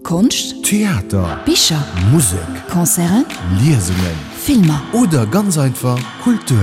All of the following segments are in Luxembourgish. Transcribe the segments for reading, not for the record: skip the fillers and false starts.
Konscht, Theater, Bicher, Musek, Concerten, Liesungen, Filmer. Oder ganz einfach Kultur.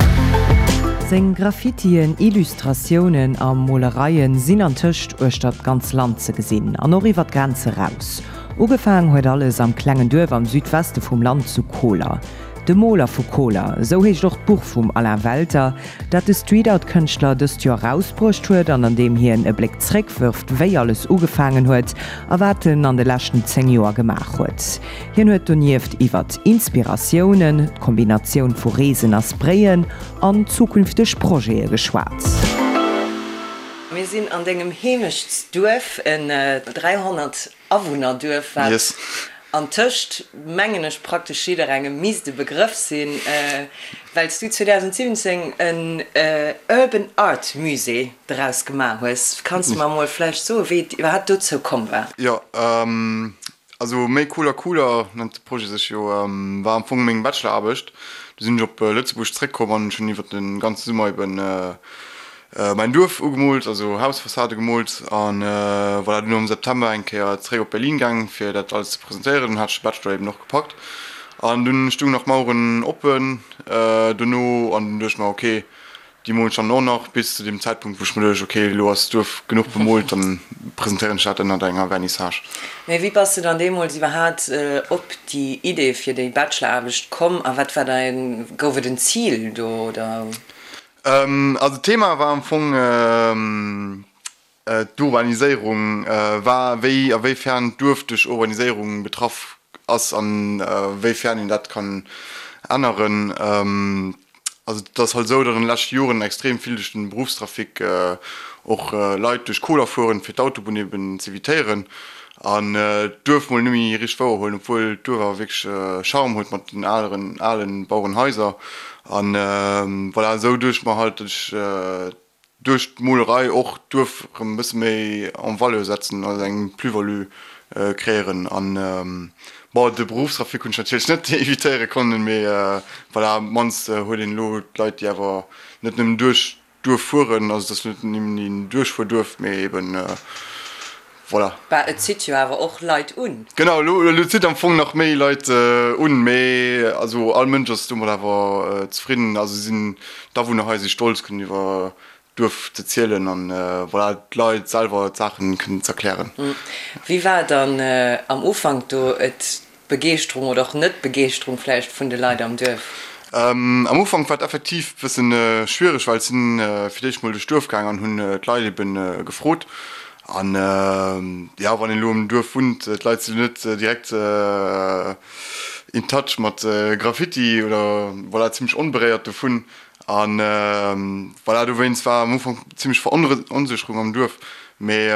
Seng Graffitien, Illustratiounen a Molereien sinn antëscht uechter d'ganz Land ze gesinn an och iwwer d'Grenze raus. Ugefaang huet alles am klengen Duerf am Südweste vum Land zu Koler. De Moler vu Koler, esou heescht och d'Buch vum Alain Welter, dat de Street-Art-Kënschtler dëst Joer erausbruecht huet an an deem hien e Bléck zréckwërft, wéi alles ugefaangen huet a wat en an de leschten 10 Joer gemaach huet. Hien huet donieft iwwert Inspiratiounen, d'Kombinatioun vu Reesen a Sprayen an zukünfteg Projete geschwat. Mir sinn an dengem Heemechtsduerf, en 300 Awunnerduerf, wat antëscht, mengen ech, praktesch jidderengem misst e Begrëff sinn, well s du 2017 en Urban Art Musée draus gemaach hues. Kanns de mer emol vläicht soen, wéi et iwwerhaapt dozou komm war? Jo, also Méi Cooler Cooler nennt de Projet sech jo, war am Fong meng Bacheloraarbecht. Du sinn ech op Lëtzebuerg zréckkomm an ech hunn iwwer de ganze Summer eben Mäin Duerf ugemoolt, also Hausfassade gemoolt an voilà, dunn am September eng Kéier zeréck op Berlin gaang fir dat alles ze presentéieren. Dunn hat ech de Bachelor eben och gepackt an dunn stung nach Maueren oppen dono an dunn duecht ech mer ok, déi molen ech dann och nach bis zu deem Zäitpunkt wou ech mer duecht ok, elo ass d'Duerf genuch bemoolt, dann presentéieren ech dat ënnert enger Vernissage. Mee wéi bass de dann deemools iwwerhaat op déi Idee fir déi Bacheloraarbecht komm a wat war däin, gouf et en Zil do oder? Also d'Thema war am Fong d'Urbaniséierung, war wéi a wéifern d'Duerf duerch Urbaniséierung betraff ass an wéifern een dat kann änneren. Also et ass halt esou, datt an de leschte Joren extrem vill duerch den Beruffstrafic och Leit duerch Koler fueren, fir d'Autobunn eben z'evitéieren an d'Duerf mol net méi richteg wouer huelen, obwuel d'Duerf awer wierklech Charme huet mat den aleren alen Bauerenhaiser an voilà, esou duecht ech mer halt, datt ech duerch d'Molerei och d'Duerf erëm e bësse méi en valeur setzen, also eng Plus-value créieren an bon, de Beruffstrafic hunn ech natierlech net evitéiere konnen, mee voilà, op d'mannst huet een elo d'Leit déi awer net nëmmen duerch Duerf fueren, also et ass net nëmmen een Duerchfuerduerf, mee eben voilà. Bah, et zitt jo awer och Leit un. Genau, elo elo zitt am Fong nach méi Leit un, mee also all Mënsch ass domat awer zefridden, also sinn d'Awunner hei si stolz kënnen iwwer d'Duerf ze zielen an voilà d'Leit selwer d'Saachen kënnen z'erklären. Wéi war dann am Ufank do et D'Begeeschterung oder och Net-Begeeschterung vläicht vun de Leit am Duerf? Am Ufank war et effektiv e bëssen schwiereg, well ech sinn fir d'éischt mol duerch d'Duerf gaang an hunn d'Leit eben gefrot. An jo, wann een elo am Duerf wunnt, d'Leit sinn net direkt in touch mat Graffiti oder voilà, zimmlech onberéiert dovun. An voilà, dowéinst war am Ufank zimmlech Veronsécherung am Duerf. Mee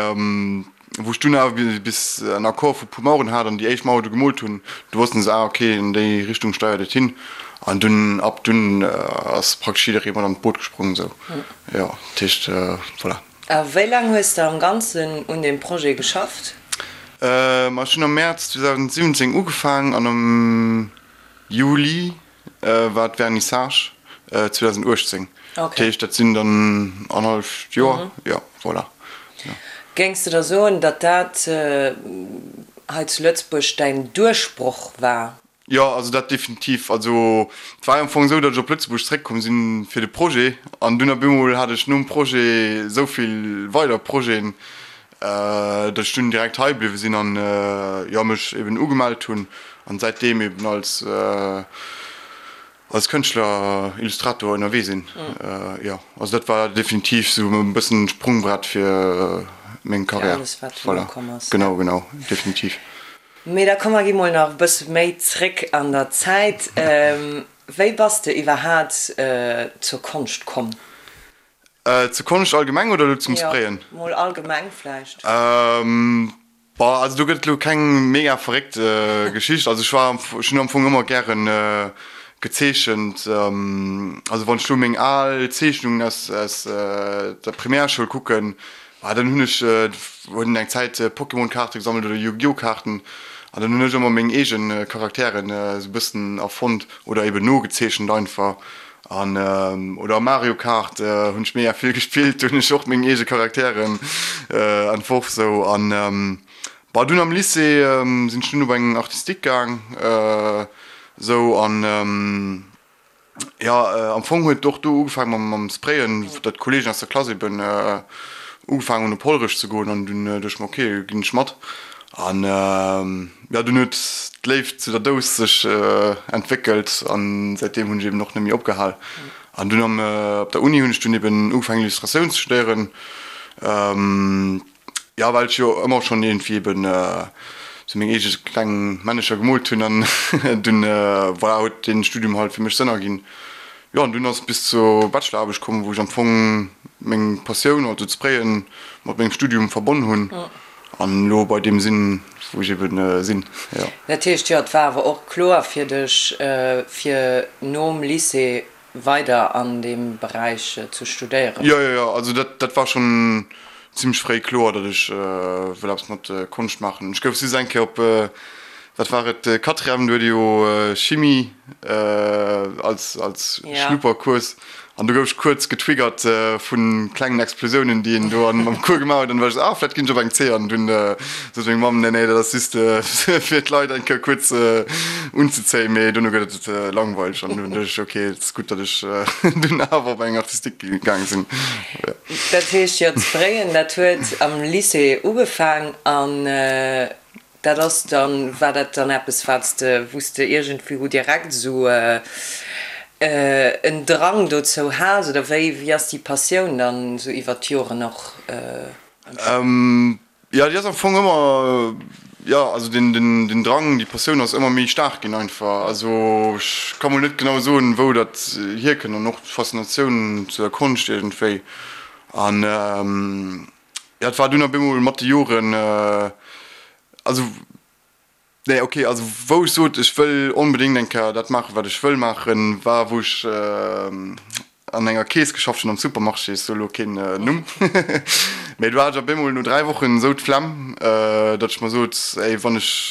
Wou ech dunn awer bis en Accord vu puer Maueren hat an déi éischt Mauer du gemoolt hunn, du wossten se, ah ok, an déi Richtung steiert et hin. An dunn, ab dunn ass praktesch jidderee mat an d'Boot gesprong esou. Jo, dat heescht, voilà. A wéi laang hues de am Ganzen un deem Projet geschafft? Ma ech hunn am Mäerz 2017 ugefaang an am Juli war d'Vernissage 2018. Dat heescht, dat sinn dann annerhalleft Joer, jo, voilà. Géings de da soen, datt dat hei zu Lëtzebuerg däin Duerchbroch war? Jo, also dat definitiv. Also et war jo am Fong esou, datt ech op Lëtzebuerg zeréckkomm sinn fir de Projet an dunn op eemol hat ech nom Projet esou vill weider Projeten, datt ech dunn direkt hei bliwwe sinn an jo mech eben ugemellt hunn an säitdeem eben als als Kënschtler, Illustrator ënnerwee sinn. Jo, also dat war definitiv sou e bëssen Sprungbrett fir meng Karriär. Voilà, genau, genau, definitiv. Mee da komm mer gi mol nach e bësse méi zréck an der Zäit. Wéi bass de iwwerhaat zur Konscht komm? Zur Konscht allgemeng oder elo zum Sprayen? Jo, mol allgemeng vläicht. Boah, also do gëtt et elo keng mega verréckt Geschicht. Also ech war, ech hunn am Fong ëmmer gären gezeechent. Also wann ech elo meng al Zeechnungen aus aus der Primärschoul kucken, ah dann hunn ech hunn eng Zäit Pokémon-Kaarte gesammelt oder Yu-Gi-Oh! Kaarten an dann hunn ech ëmmer meng eegen Charakteren esou e bëssen erfonnt oder eben nogezeechent einfach. An oder Mario Kart hunn ech mega vill gespillt, do hunn ech och meng eege Charakteren entworf sou. An Bon, dunn am Lycée sinn ech dunn op eng Artistique gaang, esou an jo, am Fong huet och do ugefaang mam mam Sprayen, datt d'Kollegen aus der Klass eben ugefaang hunn op Hollerech ze goen an dunn duecht ech mer, ok, ginn ech mat. An jo, dunn huet d'Léift zu der Dous sech entwéckelt an säitdeem hunn ech eben och net méi opgehal. An dunn am op der Uni hunn ech dunn eben ugefaangen Illustratioun ze studéieren. Jo, well ech jo ëmmer schonn iergendwéi eben sou meng eege kleng Männecher gemoolt hunn an dunn, voilà, huet dee Studium halt fir mech Sënn erginn. Jo, an dunn ass et bis zur Bacheloraarbecht komm, wou ech am Fong meng Passioun, also d'Sprayen, mat mengem Studium verbonn hunn an elo bei deem sinn, wou ech eben sinn, jo. Dat heescht, jo, et war awer och kloer fir dech, fir nom Lycée weider an deem Beräich ze studéieren? Jo, jo, jo, also dat, dat war schonn zimmlech fréi kloer, datt ech wëll eppes mat Konscht maachen. Ech gouf just eng Kéier op, wat war et, Quatrième, do huet ee jo Chimie als, als Schnuppercours an do gouf ech kuerz getriggert vu klengen Explosiounen, déi een do am Cours gemaach huet an du war ech esou, ah, vläicht ginn ech op eng C an dunn sot meng Mamm, nee, nee, dat ass just fir d'Leit eng Kéier kuerz unzezéien, mee dono gëtt et langweileg an dunn duecht ech, ok, et ass gutt, datt ech dunn awer op eng Artistique gaang sinn. Dat heescht, jo, d'Sprayen, dat huet am Lycée ugefaang an dat ass dann, war dat dann eppes, wat s de, wou s de iergendwou direkt esou en Drang dozou has oder wéi, wéi ass déi Passioun dann esou iwwert d'Joren och entstanen? Jo, déi ass am Fong ëmmer, jo, also den, den, den Drang, déi Passioun ass ëmmer méi staark ginn einfach. Also ech ka mol net genau soen, wou dat hierkënnt an och d'Faszinatioun zu der Konscht iergendwéi. An jo, et war dunn op eemol mat de Joren, also Nee, ok, also wou ech sot, ech wëll onbedéngt eng Kéier dat maachen, wat ech wëll maachen, war wou ech an enger Kees geschafft hunn am Supermarché, ech soe lo keen Numm, mee do hat ech op eemol no 3 Wochen esou d'Flemm, datt ech mer sot, ey, wann ech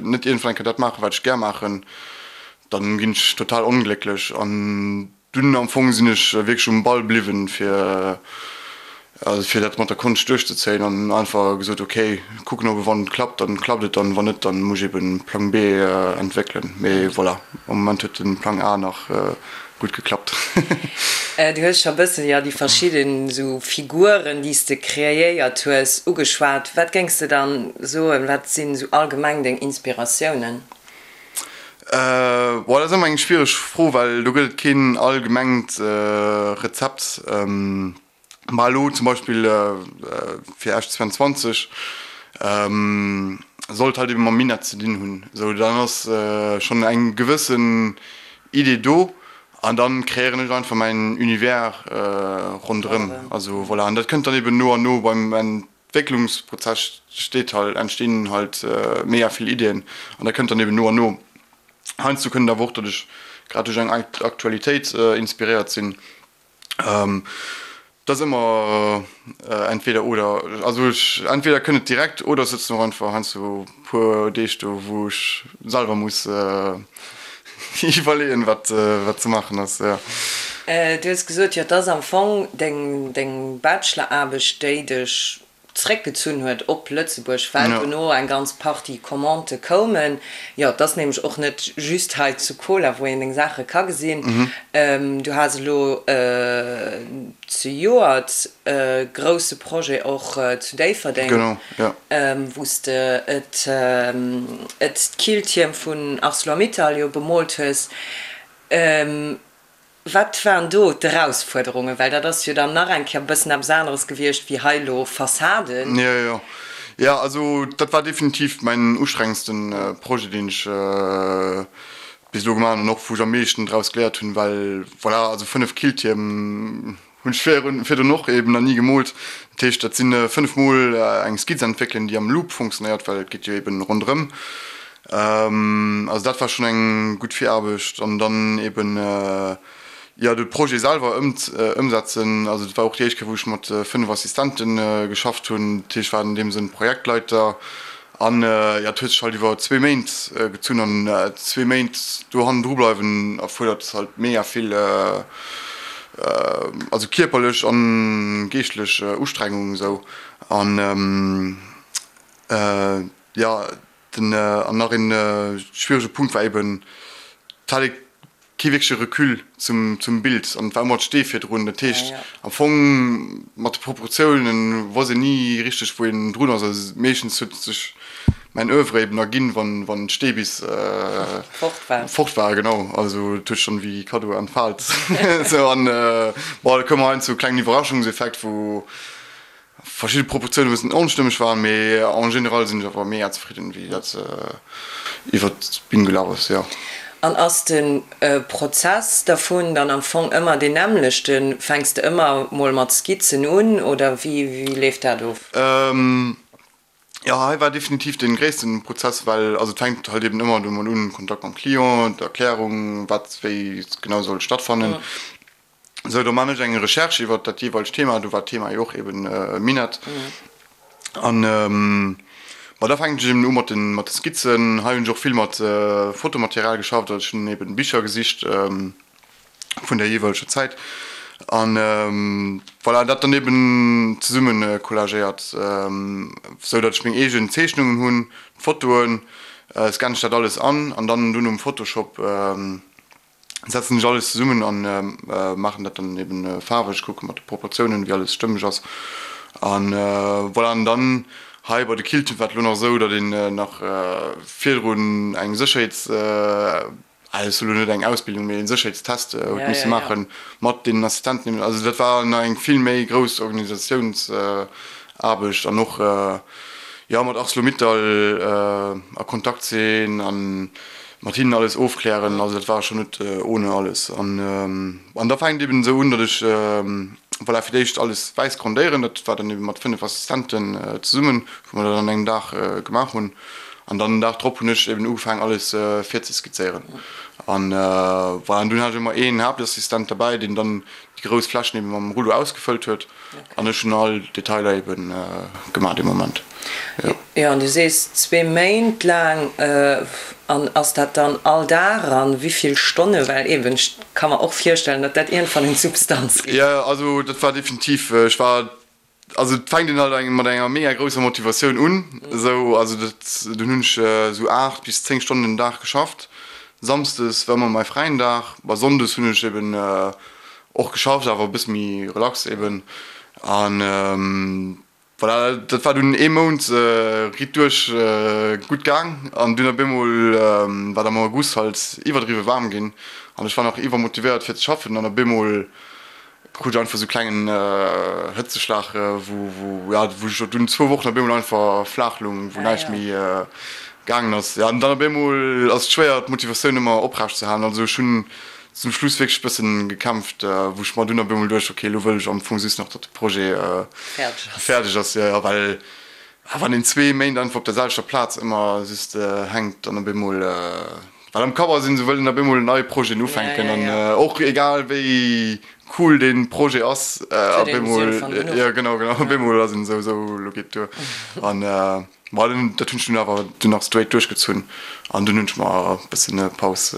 net iergendwann eng Kéier dat maachen, wat ech gär maachen, dann ginn ech total onglécklech. An Dunn am Fong sinn ech wierklech um Ball bliwwen, fir also fir dat mat der Konscht duerchzezéien an einfach gesot, ok, kucken ob wann et klappt, dann klappt et an wann net, dann muss ech eben Plang B entwéckelen. Mee voilà, am Moment huet den Plang A nach gutt geklappt. Du hues scho bëssen, jo, déi verschidden esou Figuren, déi s de kreéiert hues, ugeschwat. Wat géings de dann soen, wat sinn esou allgemeng deng Inspiratiounen? Boah, dat ass ëmmer eng schwiereg Fro, well do gëtt et keen allgemengt Rezept. Ma elo zum Beispill fir Esch 22 sollt halt ebe mam Minett ze dinn hunn. Esou, dann ass schonn eng gewëssen Idee do an dann kreéieren ech einfach mäin Univers ronderëm. Also voilà, an dat kënnt dann eben no an no beim Entwécklungsprozess steet halt, entstinn halt mega vill Iddien an dat kënnt dann eben no an no. Heiansdo kënnt et awer och, datt ech grad duerch eng Aktualitéit inspiréiert sinn. Dat ass ëmmer entweder oder. Also ech, entweder kënnt et direkt oder ech sëtzen och einfach heiansdo e puer Deeg do, wou ech selwer muss iwwerleeën, wat wat ze maachen ass, jo. Du hues gesot, jo, et ass am Fong deng deng Bacheloraarbecht, déi dech zréckgezunn huet op Lëtzebuerg, well dono eng ganz Partie Commandë koumen. Jo, et ass nämlech och net just hei zu Koler, wou een deng Saache ka gesinn. Du has elo zejoert e grousse Projet och zu Déifferdeng, wou s de et d'Killtierm vun Arcelor-Mittal jo bemoolt hues. Wat waren do d'Erausfuerderungen? Well dat ass jo dann nach eng Kéier e bëssen eppes aneres gewiescht wéi hei elo Fassaden. Jo, jo. Jo, also dat war definitiv mäin ustrengendsten Projet, deen ech bis elo gemaach hunn an och wou ech am meeschten draus geléiert hunn, well voilà, also 5 Killtierm hunn ech virdrun och eben nach ni gemoolt. Dat heescht, dat sinn 5 mol eng Skizz entwéckelen, déi am Loop funktionéiert, well et geet jo eben ronderëm. Also dat war schonn eng gutt Viraarbecht an dann eben jo de Projet selwer ëmsetzen. Also dat war och déi éischt Kéier, wou ech mat 5 Assistente geschafft hunn. Dat heescht, ech war an deem Sënn Projektleiter An jo, et huet sech halt iwwer zwee Méint gezunn an zwee Méint do hannendru bleiwen erfuerdert halt mega vill, also kierperlech an geeschtlech Ustrengung esou. An. Jo, den, an nach een schwierege Punkt war eben, et hat ee kee wierkleche Recul zum, zum Bild an et war ëmmer d'Stee virdrun. Dat heescht am Fong mat de Proportiounen wosst een ni richteg wou een drun ass. Also meeschtens huet sech mäin Oeuvre eben erginn, wann, wann d'Stee bis fort war. Fort war, genau. Also et huet sech dann wéi Kaddo entfaalt. Sou an bon, da koum heiansdo e klengen Iwwerraschungseffekt, wou verschidde Proportiounen e bëssen onstëmmeg waren, mee en général sinn ech awer mega zefridden, wéi dat iwwert d'Bün gelaf ass, jo. An ass de Prozess dervun dann am Fong ëmmer deen nämmlechten? Fänks de ëmmer mol mat Skizzen un oder wéi leeft dat of? Jo, hei war definitiv dee gréissten Prozess, well also et fänkt halt eben ëmmer domat un, Kontakt mam Client, d'Erklärung, wat wéi genau soll stattfannen. Sou, do man ech eng Recherche iwwert dat jeeweilegt Thema, do war d'Thema jo och eben Minett. An ma da fänken ech eben u mat den mat de Skizzen. Hei hunn ech och vill mat Fotomaterial geschafft, also ech hunn eben Bicher gesicht vun der jeeweileger Zäit an voilà, dat dann eben zesumme collagéiert, sou datt ech meng eegen Zeechnungen hunn, d'Fotoen, scanne ech dat alles an an dann dunn um Photoshop setzen ech alles zesummen an maachen dat dann eben faarweg, kucke mat de Proportiounen wéi alles stëmmeg ass an voilà. An dann hei bei de Kilten war et elo nach esou, datt een nach virdrun eng Sécherheets, ah dat ass elo net eng Ausbildung, mee een Sécherheetstest huet misse maachen mat deenen Assistenten eben. Also dat war nach eng vill méi grouss Organisatiounsaarbecht an och jo mat Arcelor-Mittal a Kontakt sinn an mat hinnen alles ofklären, also dat war schon net ohne alles. An an da fänkt eben esou un, datt ech voilà fir d'éischt alles wäiss grondéieren, dat war dann eben mat 5 Assistenten zesummen, wou mer dat an engem Dag gemaach hunn. An dann den Dag drop hunn ech eben ugefaangen alles virzeskizzéieren. An voilà, an dunn hat ech ëmmer een Haaptassistent derbäi, deen dann déi grouss Flächen eben mam Rullo ausgefëllt huet an ech hunn all Detailer eben gemaach dee Moment, jo. Jo, an du sees zwee Méint laang, an ass dat dann all Dag an wéi vill Stonne? Well eben, ech ka mer och virstellen, datt dat iergendwann un d'Substanz geet. Jo, also dat war definitiv, ech war, also et fänkt een halt eng mat enger mega grousser Motivatioun un, esou, also dat, dunn hunn ech esou 8 bis 10 Stonnen den Dag geschafft, Samsdes war ëmmer mäi fräien Dag, a Sonndes hunn ech eben och geschafft, awer e bësse méi relax eben. An voilà, dat war dunn ee Mount riit duerch gutt gaang. An dunn op eemol war et am August halt iwwerdriwwe waarm ginn an ech war nach iwwermotivéiert fir ze schaffen an op eemol krut ech einfach sou klengen Hëtzeschlag, wou wou ja wou ech dunn zwou Wochen op eemol einfach flaach lung, wou näischt méi gaangen ass. Ja an dann op eemol ass et schwéier d'Motivatioun ëmmer oprecht ze halen. Also ech hunn zum Schluss wierklech bëssen gekämpft, wou ech mer dunn op eemol duecht, ok elo wëll ech am Fong just nach datt de Projet fäerdeg ass, jo jo, well wann een zwee Méint einfach op der selwechter Plaz ëmmer just hänkt, dann op eemol well am Kapp ass een esou, wëll een op eemol nei Projeten ufänken an och egal wéi cool dee Projet ass, op eemol, jo genau, genau, op eemol ass een esou, esou elo geet et duer an. Bon, dat hunn ech dunn awer dunn nach straight duerchgezunn an dunn hunn ech mer e bëssen Paus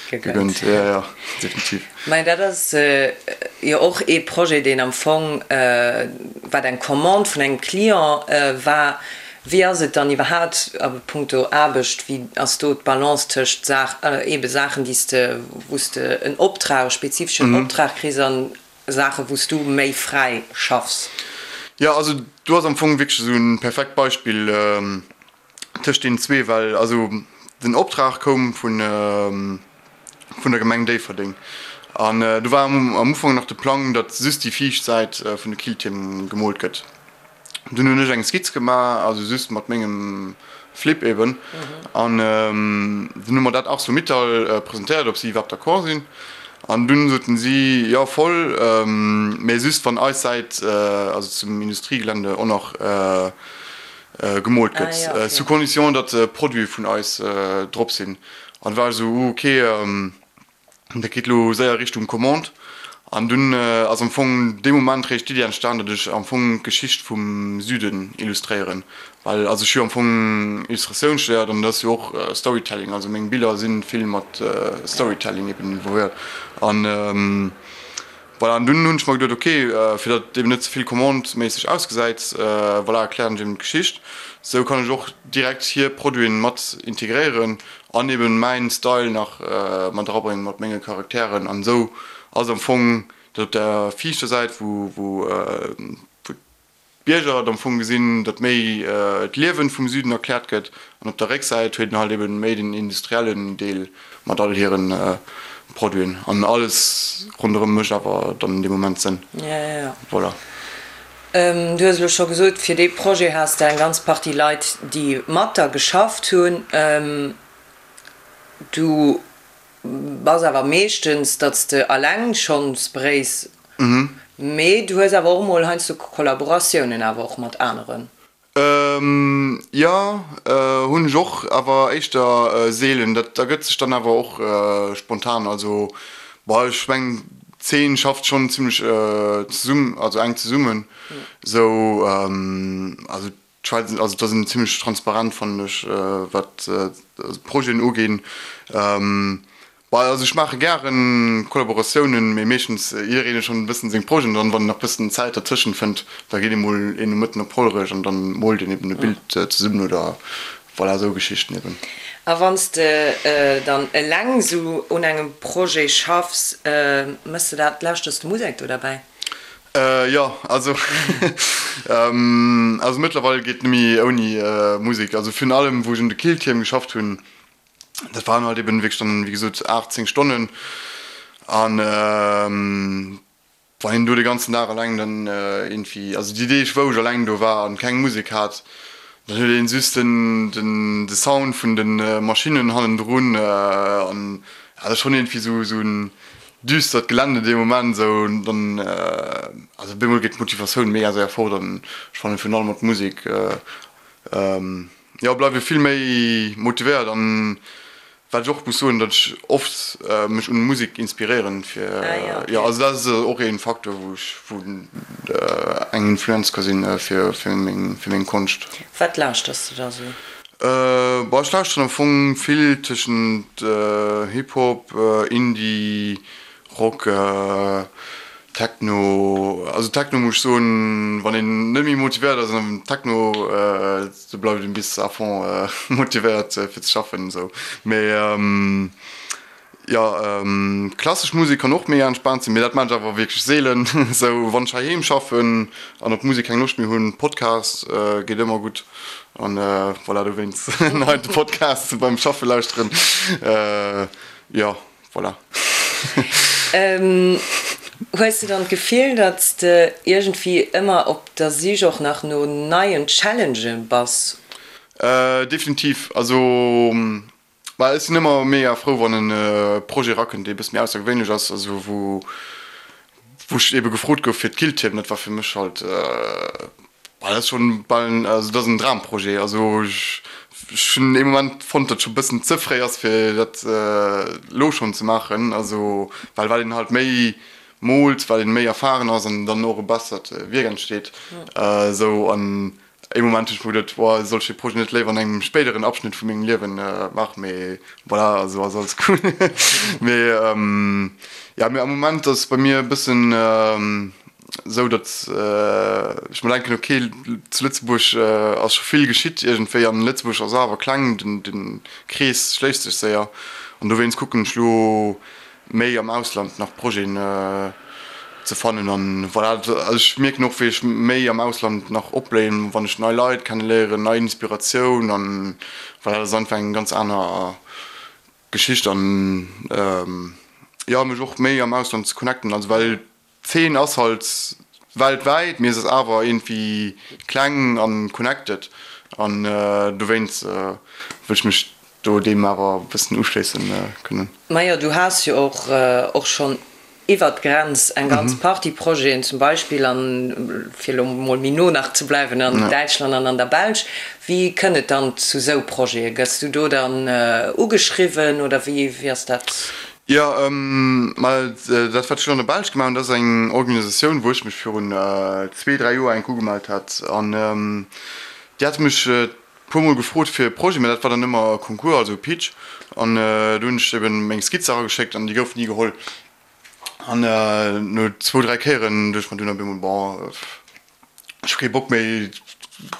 gegönnt. Jo, jo, definitiv. Mä dat ass jo och ee Projet, deen am Fong, wat eng Commande vun engem Client war. Wéi ass et dann iwwerhaapt a punkto Aarbecht, wéi ass do d'Balance tëscht Saach, eebe Saachen, déi s de, wou s de en Optrag, e spezifeschen Optrag kriss an Saachen, wou s du méi fräi schaffs? Jo, also do ass am Fong wierklech esou e perfekt Beispill tëscht deenen zwee, well also den Optrag koum vun vun der Gemeng Déifferdeng an do war am Ufank nach de Plang, datt just déi viischt Säit vun de Killtierm gemoolt gëtt. Dunn hunn ech eng Skizz gemaach, also just mat mengem Flip eben, an dunn hu mer dat Arcelor-Mittal presentéiert, ob si iwwerhaapt d'accord sinn. An dunn soten si, jo voll, mä just wann eis Säit, also zum Industriegelände, och nach gemoolt gëtt, sous condition, datt Produite vun eis drop sinn. An du war ech esou, uh ok. Dat geet elo séier Richtung Commande. An dunn ass am Fong dee Moment réischt d'Iddi entstan, datt ech am Fong d'Geschicht vum Süden illustréieren. Well also ech hu jo am Fong Illustratioun studéiert an dat ass jo och Storytelling. Also meng Biller si vill mat Storytelling eben involvéiert. An. Voilà, an dunn hunn ech mer geduet, ok, fir datt et eben net ze vill Commande-méisseg ausgesäit, voilà, erklären ech eben d'Geschicht. Sou kann ech och direkt hir Produiten mat integréieren an eben mäin Style nach mat erabréngen mat menge Charakteren. An esou ass am Fong dat op der viischter Säit, wou wou d'Bierger et am Fong gesinn, datt méi d'Liewen vum Süden erkläert gëtt, an op der Récksäit huet een halt eben méi den industriellen Deel mat all hiren Produiten an alles ronderëm mécht awer dann an deem Moment Sënn. Voilà. Du hues elo scho gesot, fir dee Projet has de eng ganz Partie Leit, déi mat der geschafft hunn. Du bass awer meeschtens, datt s de alleng schonn sprays, mee du hues awer och emol heiansdo Kollaboratiounen awer och mat aneren. Jo, hunn ech och, awer éischter seelen. Dat ergëtt sech dann awer och spontan. Also, bon, ech mengen d'Zeen schafft schonn zimmlech zesumm, also enk zesummen esou. Also d'Schwäiz, also da sinn zimmlech transparent fannen ech, wat d'Projeten uginn. Bah, also ech maache gären Kollaboratiounen, mee meeschtens jiddereen huet schonn e bëssen seng Projeten an dann, wann en nach bëssen Zäit dertëschent fënnt, da geet ee mol een Nomëtten op Hollerech an dann moolt een eben e Bild zesummen oder voilà, esou Geschichten eben. A wann s de dann eleng esou un engem Projet schaffs, méchs de dat, lauschters de Musek do derbäi? Jo, also also mëttlerweil geet net méi ouni Musek, also virun allem wou ech un de Killtierm geschafft hunn, Dat waren halt eben wierklech dann, wéi gesot, 8, 10 Stonnen. An wann een do de ganzen Dag eleng dann iergendwéi, also déi Deeg wou ech eleng do war an keng Musek hat, dann huet een just den, den, de Sound vun de Maschinnen hannendrun an ja, dat ass schonn iergendwéi esou, esou en düstert Gelände dee Moment esou. Dann, also op eemol geet d'Motivatioun mega séier fort an ech fannen virun allem mat Musek, Jo, bleiwe vill méi motivéiert an wat ech och muss soen, datt ech oft mech un Musek inspiréieren fir, jo also dat ass och een Faktor wou ech, wou eng Influenz ka sinn fir fir meng fir meng Konscht. Wat lauschters de da sou? Bon ech lauschteren am Fong vill tëschent Hip Hop, Indie, Rock, Techno, also Techno muss ech soen, wann een net méi motivéiert ass an Techno, do bleift een bis à fond motivéiert fir ze schaffen esou. Mee jo, klassesch Musek kann och mega entspaant sinn, mee dat maan ech awer wierklech seelen esou. Wann ech heiheem schaffen an op Musek keng Loscht méi hunn, Podcast geet ëmmer gutt an voilà, dowéinst hei de Podcast beim Schaffe lauschteren, jo. Voilà. Hues de dann d'Gefill, datt s de iergendwéi ëmmer op der Sich och nach no neien Challengë bass? Definitiv. Also, bah, ech sinn ëmmer mega frou, wann e Projet erakënnt, dee e bësse méi aussergewéinlech ass, also wou wou ech ebe gefrot gouf fir d'Killtierm, dat war fir mech halt, bah, dat ass schonn bal en, also dat ass en Dramprojet. Also ech hunn ee Moment fonnt, datt et scho bëssen ze fréi ass fir dat elo schonn ze maachen, also well wat een halt méi moolt, wat een méi erfahren ass an dann och e bessert Wierk entsteet esou. An Ee Moment hunn ech mer geduet, boah, soll ech dee Projet net léiwer an engem spéideren Abschnitt vu mengem Liewen maachen, mee voilà, also ass alles cool. Mee jo, mee am Moment ass bei mir e bëssen esou, datt ech mer denken, ok, zu Lëtzebuerg ass scho vill geschitt iergendwéi an Lëtzebuerg ass awer kleng, den Krees schléisst sech séier an dowéinst kucken ech lo méi am Ausland nach Projeten ze fannen an voilà, also ech mierken och wéi ech méi am Ausland nach opbléien, wann ech nei Leit kenneléieren, nei Inspiratioun an voilà, dat ass einfach eng ganz aner Geschicht an jo mech och méi am Ausland ze connecten, also well D'Zeen ass halt weltwäit, mee se ass awer iergendwéi kleng an connected an dowéinst wëll ech mech do deem awer e bëssen uschléissen kënnen. Majo, du has jo och och schonn iwwert d'Grenz eng ganz Partie Projeten, zum Beispill an, fir elo mol méi no nach ze bleiwen, an Däitschland an an der Belsch. Wéi kënnt et dann zu sou Projete? Gëss du do dann ugeschriwwen oder wéi ass dat? Jo, ma dat wat ech elo an der Belsch gemaach hunn, dat ass eng Organisatioun, wou ech mech virun zwee, dräi Joer enk ugemellt hat. An déi hate mech e puermol gefrot fir e Projet, mä dat war dann ëmmer e Concours, also e Pitch. An do hunn ech eben meng Skizze erageschéckt an déi goufen ni geholl. An no zwou, 3 Kéieren duecht ech mer dunn op eemol, bon, ech hu kee Bock méi,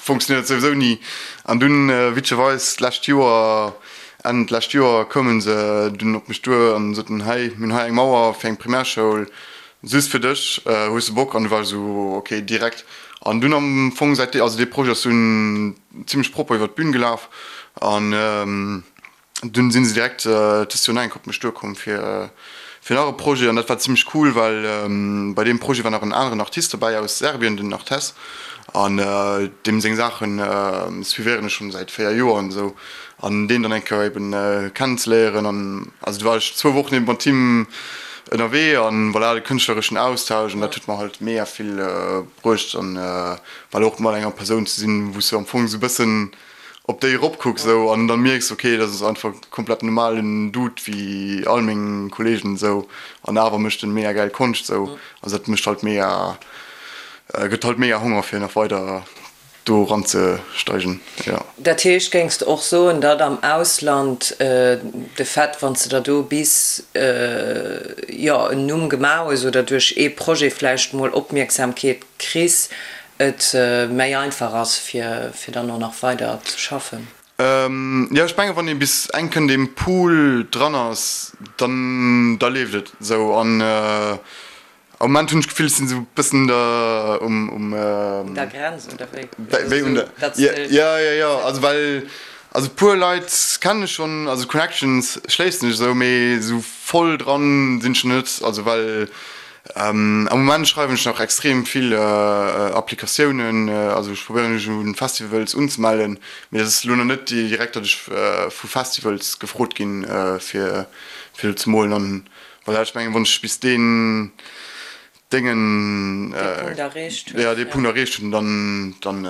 funktionéiert souwisou ni. An dunn witzegerweis d'lescht Joer, Enn d'lescht Joer, koume se dunn op mech duer an soten, hei, mir hunn hei eng Mauer fir eng Primärschoul, just fir dech, hues de Bock? An du war ech esou, ok, direkt. An dunn am Fong säit, also dee Projet ass dunn zimmlech propper iwwer d'Bün gelaf an Dunn sinn se direkt dëst Joer nach eng Kéier op mech duerkomm fir fir nach e Projet an dat war zimmlech cool, well bei deem Projet war nach en aneren Artist dobäi aus Serbien, den Artes, an deem seng Saache suivéieren ech schonn säit 4 Joer an esou an deen dann eng Kéier eben kennenzeléieren an also du war ech zwou Wochen eben mat him ënnerwee an voilà, de kënschtlereschen Austausch an dat huet mer halt mega vill bruecht an voilà och mat enger Persoun ze sinn, wou s du am Fong esou e bëssen op déi eropkucks esou an dann mierks ok dat ass einfach komplett normalen Dude wéi all meng Kollegen esou an awer mécht en mega gäil Konscht esou, also dat mécht halt mega, gëtt halt mega Honger fir nach weider do eran ze steigen jo. Dat heescht géings de och soen datt am Ausland de Fait wann s de der do bis jo en Numm gemaach hues oder duerch ee Projet vläicht mol Opmierksamkeet kriss, et méi einfach ass fir fir dann och nach weider ze schaffen. Jo ech mengen wann ee bis eng Kéier an deem Pool dran ass, dann da leeft et esou an am Moment hunn ech d'Gefill ech sinn esou bëssen der um um Un der Grenz oder wéi? Wéi un der jo jo jo also well also puer Leit kennen ech schonn also Connections schléissen ech esou mee esou voll dran sinn ech net also well Am Moment schreiwen ech nach extrem vill Applikatiounen, also ech probéieren mech un Festivals unzemellen, mee dat ass elo nach net direkt, datt ech vu Festivals gefrot ginn fir fir do ze molen an voilà, ech mengen wann ech bis deen Déngen, jo dee Punkt erreecht hunn, dann dann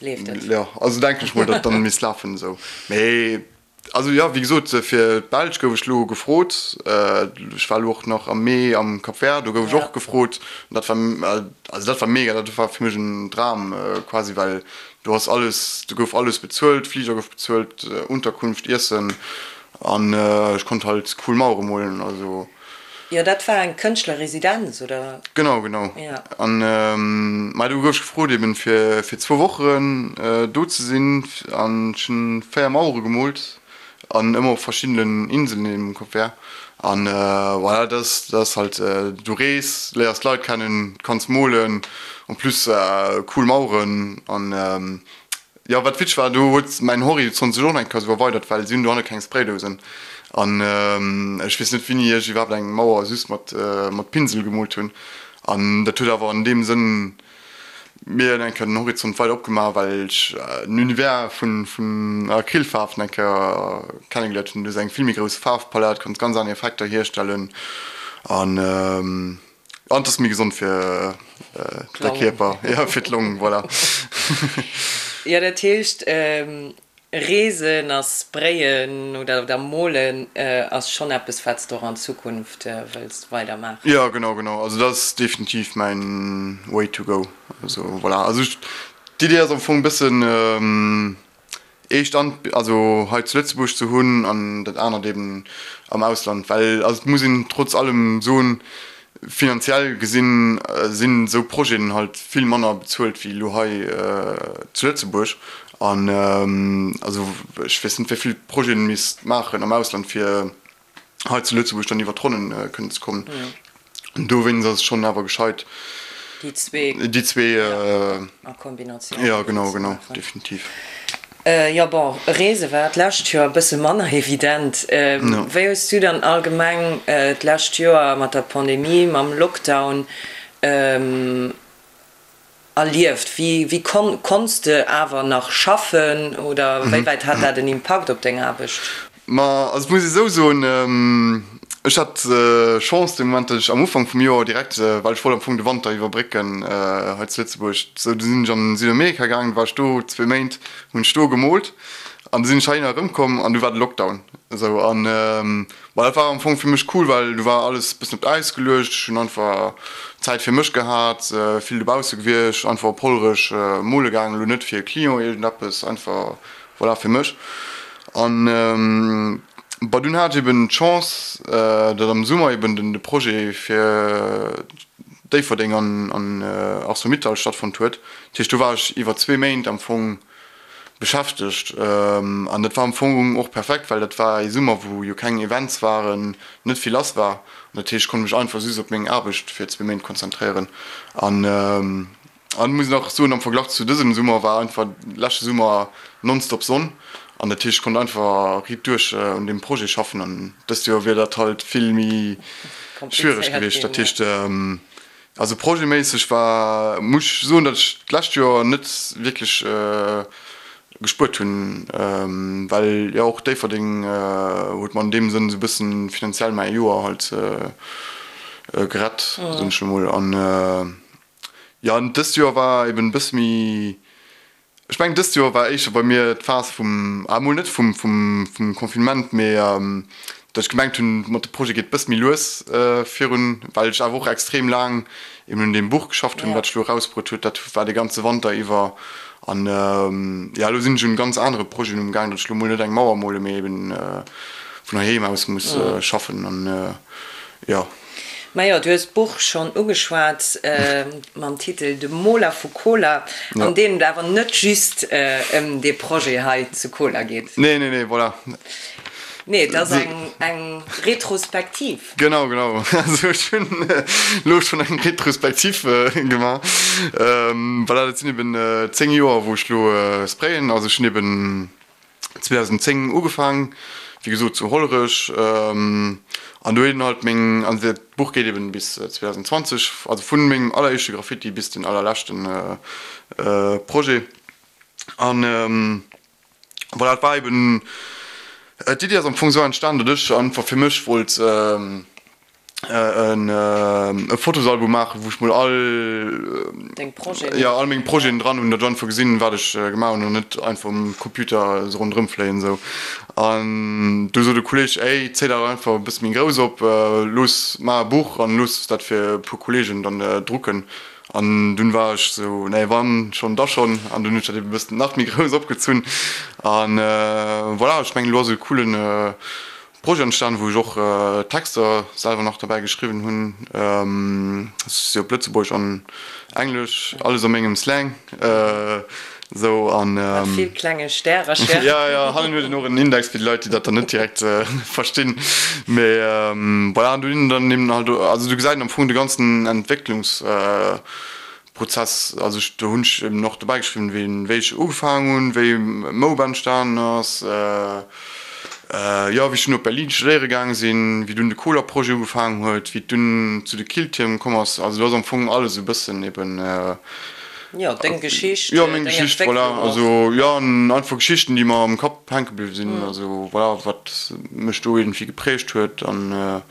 leeft et, jo also denken ech mol, datt dann misst lafen esou, mee. Also jo, wéi gesot, fir d'Belsch gouf ech elo gefrot. Ech war elo och nach am Mee am Cap Vert, do gouf ech och gefrot. Dat war, also dat war mega, dat war fir mech en Dram quasi, well do ass alles, do gouf alles bezuelt, Fliger gouf bezuelt, Unterkunft, Iessen an ech konnt halt cool Mauere molen, also. Jo, dat war eng Kënschtlerresidenz, oder? Genau, genau. Ja. An ma do gouf ech gefrot eben fir fir zwou Wochen do ze sinn an ech hunn 4 Mauere gemoolt an ëmmer op verschiddenen Inselen eben um Cap Vert. An voilà, dat ass dat ass halt, du rees, léiers d'Leit kennen, kanns molen, en plus cool Maueren an Jo, wat witzeg war, do huet mäin Horizont sech och nach eng Kéier esou erweidert, well si hunn dohanne keng Spraydousen. An ech weess net, wéini ech iwwerhaapt eng Mauer just mat mat Pinsel gemoolt hunn. An dat huet awer an deem Sënn mir eng Kéier den Horizont weider opgemaach, well ech den Univers vun vun Acrylfaarwen eng Kéier kennegeléiert hunn. Du hues eng vill méi grouss Faarfpalett, kanns ganz aner Effekter hierstellen an. An et ass méi gesond fir de Kierper, jo, fir d'Long, voilà. Jo, dat heescht, Reesen a Sprayen oder Molen ass schonn eppes, wat s de och an Zukunft wëlls weider maachen? Jo, genau, genau. Also dat ass definitiv mäin Way to go. Also voilà, also d'Idee ass am Fong e bëssen, ee Stand also hei zu Lëtzebuerg ze hunn an dat anert eben am Ausland, well also et muss een trotz allem soen, finanziell gesinn sinn esou Projeten halt vill manner bezuelt wéi elo hei zu Lëtzebuerg an also ech weess net wéi vill Projeten misst maachen am Ausland fir hei zu Lëtzebuerg dann iwwer d'Ronnen kënnen ze kommen. An dowéinst ass et schonn awer gescheit, déi zwee, déi zwee a Kombinatioun jo, genau, genau, definitiv. Jo, bon, Reese war d'lescht Joer e bësse manner evident. Wéi hues du dann allgemeng d'lescht Joer mat der Pandemie, mam Lockdown Erlieft? Wéi konns de awer nach schaffen oder wéi wäit hat dat en Impakt op deng Aarbecht? Ma also et muss ee sou soen, ech hat Chance dee Moment, datt ech am Ufank vum Joer direkt, well ech wollt am Fong de Wanter iwwerbrécken hei zu Lëtzebuerg, sou du sinn ech an Südamerika gaangen, du war ech do zwee Méint, hunn ech do gemoolt an du sinn ech heihinner erëmkomm an du war de Lockdown esou an Ma dat war am Fong fir mech cool, well du war alles bëssen op d'Äis geluecht. Ech hunn einfach Zäit fir mech gehat, vill dobausse gewiescht, einfach op Hollerech mole gaangen, elo net fir e Client iergendeppes, einfach voilà fir mech. An. Bon, dunn hat ech eben d'Chance, datt am Summer eben den de Projet fir Déifferdeng an an Arcelor-Mittal stattfonnt huet. Dat heescht, do war ech iwwer zwee Méint am Fong beschäftegt. An dat war am Fong och perfekt, well dat war ee Summer, wou jo keng Events waren, net vill lass war. An dat heescht, ech konnt mech einfach just op meng Aarbecht fir zwee Méint konzentréieren. An an muss nach soen, am Verglach zu dësem Summer war einfach leschte Summer nonstop Sonn. An dat heescht, ech konnt einfach riit duerch un deem Projet schaffen. An dëst Joer wier dat halt vill méi schwiereg gewiescht. Dat heescht, Also projetméisseg war, muss ech soen, datt ech d'lescht Joer net wierklech gespuert hunn, well jo och Déifferdeng huet mer an deem Sënn esou e bëssen finanziell mäi Joer halt gerett, soen ech elo mol. An jo, an dëst Joer war eben e bësse méi Ech mengen dëst Joer war éischter bei mir d'Phas vum, ah mol net vum vum Confinement, mee datt ech gemengt hunn, mat de Projet geet bësse méi lues virun, well ech awer och extrem laang eben un deem Buch geschafft hunn, wat ech elo erausbruet huet. Dat war de ganze Wanter iwwer. An jo, elo sinn ech un ganz anere Projeten um gaang, datt ech elo mol net eng Mauer mole mee eben vun heiheem aus muss schaffen an jo. Majo, du hues d'Buch schonn ugeschwat mam Titel De Moler vu Koler, an deem et awer net just ëm dee Projet hei zu Koler geet. Nee, nee, nee, voilà. Nee, et ass eng Retrospektiv. Genau, genau. Also ech hunn elo schonn eng Retrospektiv gemaach. Voilà, dat sinn eben 10 Joer, wou ech elo sprayen. Also ech hunn eben 2010 ugefaang, wéi gesot zu Hollerech, an do hunn halt meng, an dat Buch geet eben bis 2020, also vun mengem alleréischte Graffiti bis den allerleschten Projet. An voilà, et war eben, d'Iddi ass am Fong esou entstan, datt ech einfach fir mech wollt e Fotosalbum maachen, wou ech mol all Deng Projeten. Jo, all meng Projeten dran hunn, datt ech einfach gesinn, wat ech gemaach hunn an net einfach um Computer esou ronderëm fléien esou. An du sot e Kolleeg, Ey, zéi dat einfach e bësse méi grouss op, looss, maach e Buch an looss dat fir e puer Kolleegen dann drucken. An dunn war ech esou, Nee, wann schonn, da schonn. An dunn hunn ech dat ebe bëssen nach méi grouss opgezunn. An voilà, ech mengen, elo ass e coolen Projet entstan, wou ech och Texter selwer nach derbäi geschriwwen hunn. Si op Lëtzebuergesch an Englesch, alles a mengem Slang esou an. Mat vill klenge Stärercher. Jo, jo, hannen huet een och en Index fir déi Leit, déi dat dann net direkt verstinn. Mee voilà, an do hunn dann eben halt, also do gesäit een am Fong de ganzen Entwécklungs. Prozess, also ech, do hunn ech eben och dobäi geschriwwen, wéi, wéi ech ugefaangen hunn, wéi Moub entstanen ass, jo, wéi ech dunn op Berlin studéiere gaange sinn, wéi dunn de Koler-Projet ugefaangen huet, wéi et dunn zu de Killtierm komm ass. Also do ass am Fong alles esou e bëssen eben. Jo, deng Geschicht, jo, meng Geschicht, voilà. Also jo, an einfach Geschichten, déi mer am Kapp hänke bliwwe sinn, also voilà, wat mech do iergendwéi geprägt huet an.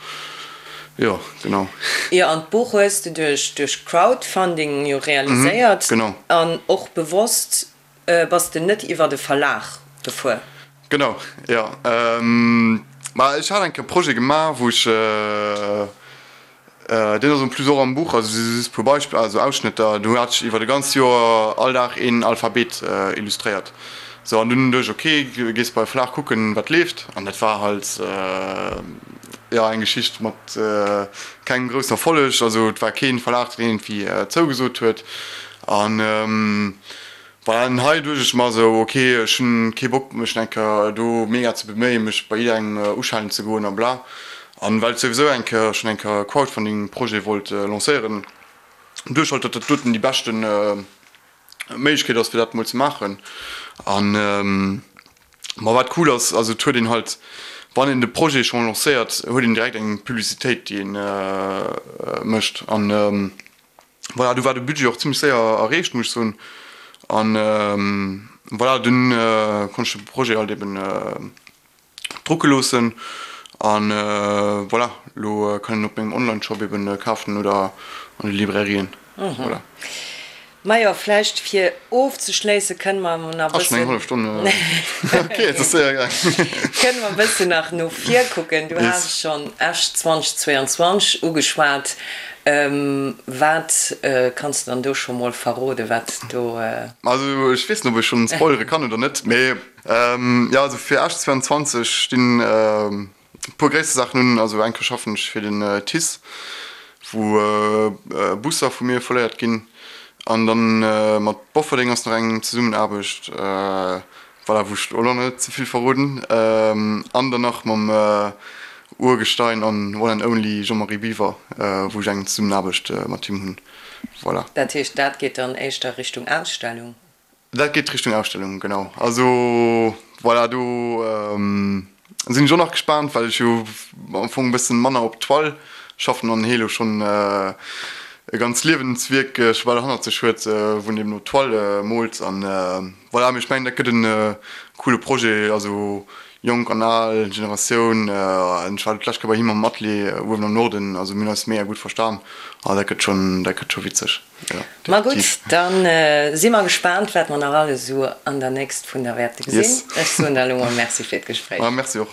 Jo, genau. Jo, an d'Buch hues de duerch duerch Crowdfunding jo realiséiert. Genau. An och bewosst bass de net iwwert e Verlag gefuer. Genau, jo. Ma ech hat eng Kéier e Projet gemaach, wou ech, deen ass en plus och am Buch, also si just e puer Beispiller, also Ausschnëtter, do hat ech iwwert e ganzt Joer all Dag een Alphabet illustréiert. Sou, an dunn duecht ech, ok, gees bei e Verlag kucken, wat leeft. An dat war halt. Jo, eng Geschicht mat kengem groussen Erfolleg. Also et war keen Verlag deen iergendwéi zougesot huet. An voilà, an hei duecht ech mer esou, ok, ech hunn kee Bock mech eng Kéier do mega ze beméien, mech bei jidderengem uschellen ze goen a bla. An well ech souwisou eng Kéier schonn eng Kéier e Crowdfunding Projet wollt lancéieren, duecht ech halt, datt dat doten déi beschten Méiglechkeet ass fir dat mol ze maachen. An Ma wat cool ass, also et huet een halt, wann een de Projet schonn lancéiert, huet een direkt eng Publicitéit déi een mécht. An voilà, du war de Budget och zimmlech séier erreecht, muss ech soen. An voilà, dunn konnt ech de Projet halt eben drucke loossen. An voilà, elo kann een op mengem Online-Shop eben kafen oder an de Librairien. Voilà. Majo, vläicht fir ofzeschléisse kënne mer nach e Ah, schon eng bëssen. hallef Stonn. Ok, et ass séier gaang. Kënne mer e bëssen nach no vir kucken. Du Yes. has schonn Esch 2022 ugeschwat. Wat kanns de dann do scho mol verroden, wat do. Also ech weess net, ob ech schonn spoilere kann oder net, mee jo, also fir Esch 22 stinn e puer gréisser Saachen un. Also eng Kéier schaffen ech fir den TICE, wou Busser vu mir folléiert ginn. An dann mat Bofferdeng ass nach eng Zesummenaarbecht, voilà, wou ech elo net ze vill verroden. An dann nach mam Urgestein an One and Only Jean-Marie Biwer, wou ech eng Zesummenaarbecht mat him hunn. Voilà. Dat heescht, dat geet dann éischter Richtung Ausstellung? Dat geet Richtung Ausstellung, genau. Also voilà, do sinn ech och nach gespaant, well ech jo am Fong e bëssen manner op Toile schaffen an hee lo schonn e ganz Liewenswierk scho bal hannert sech huet, wou en eben op Toile moolt. An voilà, mee ech mengen dat gëtt en coole Projet, also jonk an al Generatioun. Ech war d'lescht Kéier bei him am Atelier uewen am Norden, also mir hunn eis mega gutt verstan. Ah dat gëtt schonn, dat gëtt scho witzeg. Ma gutt, da si mer gespaant, wat mer nach alles esou an der Nächst vun der wäerte gesinn. Ech soen der elo mol Merci fir d'Gespréich. Ma merci och.